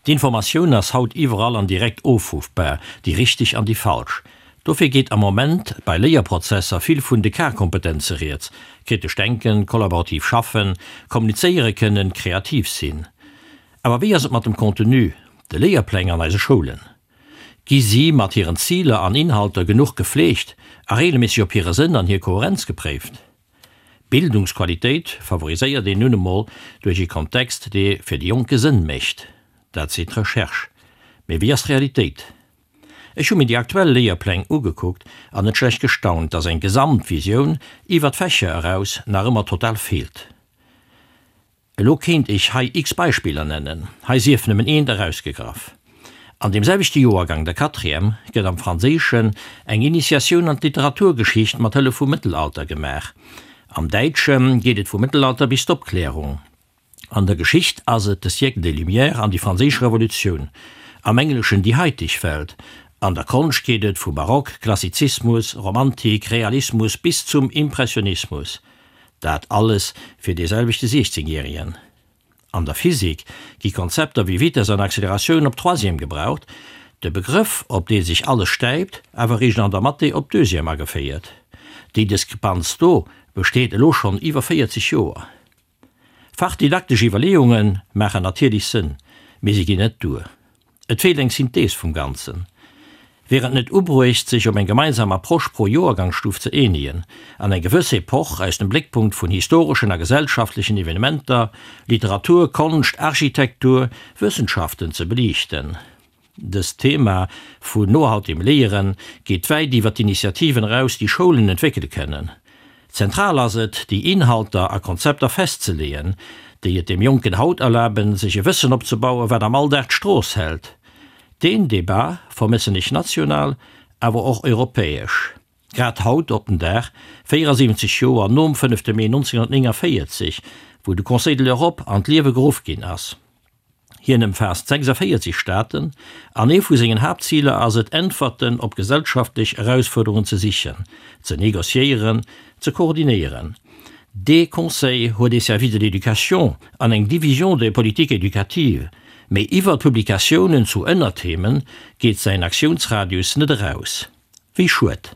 D'Informatioun ass haut iwwerall an direkt ofruffbar, déi richteg an déi falsch. Dofir geet am Moment bei Léierprozesser vill vun de K-Kompetenze rieds, kritesch denken, kollaborativ schaffen, kommunizéiere kënnen, kreativ sinn. Awer wéi ass et mat dem Contenu, de Léierpläng an eise Schoulen? Gi si mat hiren Ziler an Inhalter genuch gefleegt a regelméisseg op hire Sënn an hir Koherenz gepréift? Bildungsqualitéit favoriséiert een nun emol duerch ee Kontext, dee fir de Jonke Sënn mécht. Dat seet d'Recherche. Mee wéi ass d'Realitéit? Ech hu mir déi aktuell Léierpläng ugekuckt an net schlecht gestaunt, dass eng Gesamtvisioun iwwer d'Fächer eraus nach ëmmer total feelt. Elo kéint ech hei x Beispiller nennen, hei sief nëmmen eent erausgegraff. An deem selwechte Joergang, der Quatrième, gëtt am Franséischen eng Initiatioun an d'Literaturgeschicht mat Hëllef vum Mëttelalter gemaach. Am Däitsche geet et vum Mëttelalter bis d'Opklärung. An der Geschicht ass et de Siècle des Lumières an déi Franséisch Revolutioun. Am Engleschen déi haiteg Welt. An der Konscht geet et vu Barock, Klassizismus, Romantik, Realismus bis zum Impressionismus. Dat alles fir dee selwechte 16 Järigen. An der Physik gi Konzepter wéi Vitess an Acceleratioun op Troisième gebraucht, de Begrëff op dee sech alles stäipt awer eréischt an der Mathé op Deuxième ageféiert. Déi Diskrepanz do besteet elo schonn iwwer 40 Joer. Fachdidaktesch Iwwerleeunge maachen natierlech Sënn, mee se ginn net duer. Et feelt eng Synthees vum Ganzen. Wier et net ubruecht, sech op eng gemeinsam Approche pro Joergangsstuf ze eenegen an eng gewëss Epoch aus dem Bléckpunkt vun historeschen a gesellschaftlechen Evenementer, Literatur, Konscht, Architektur, Wëssenschaften ze beliichten? Dëst Thema vun nohaltegem Léiere geet wäit iwwer d'Initiativen eraus, déi Schoulen entwéckele kënnen. Zentral ass et, déi Inhalter a Konzepter festzeleeën, déi et dem Jonken haut erlaben, sech e Wëssen opzebauen, wat am Alldag d'Strooss hält. Deen Debat vermëssen ech national, awer och europäesch. Grad haut op den Dag, 74 Joer nom fënnefte Mee 1949, wou de Conseil de l'Europe an d'Liewe geruff ginn ass. Hien ëmfaasst 46 Staaten an ee vu sengen Haaptziler ass et, Äntwerten op gesellschaftlech Erausfuerderungen ze sichen, ze negociéieren, ze koordinéieren. Dee Conseil huet ee Service de l'éducation an eng Division des politiques éducatives, mee iwwer Publikatiounen zu Ënnertheme geet säin Aktiounsradius net eraus. Wéi schued!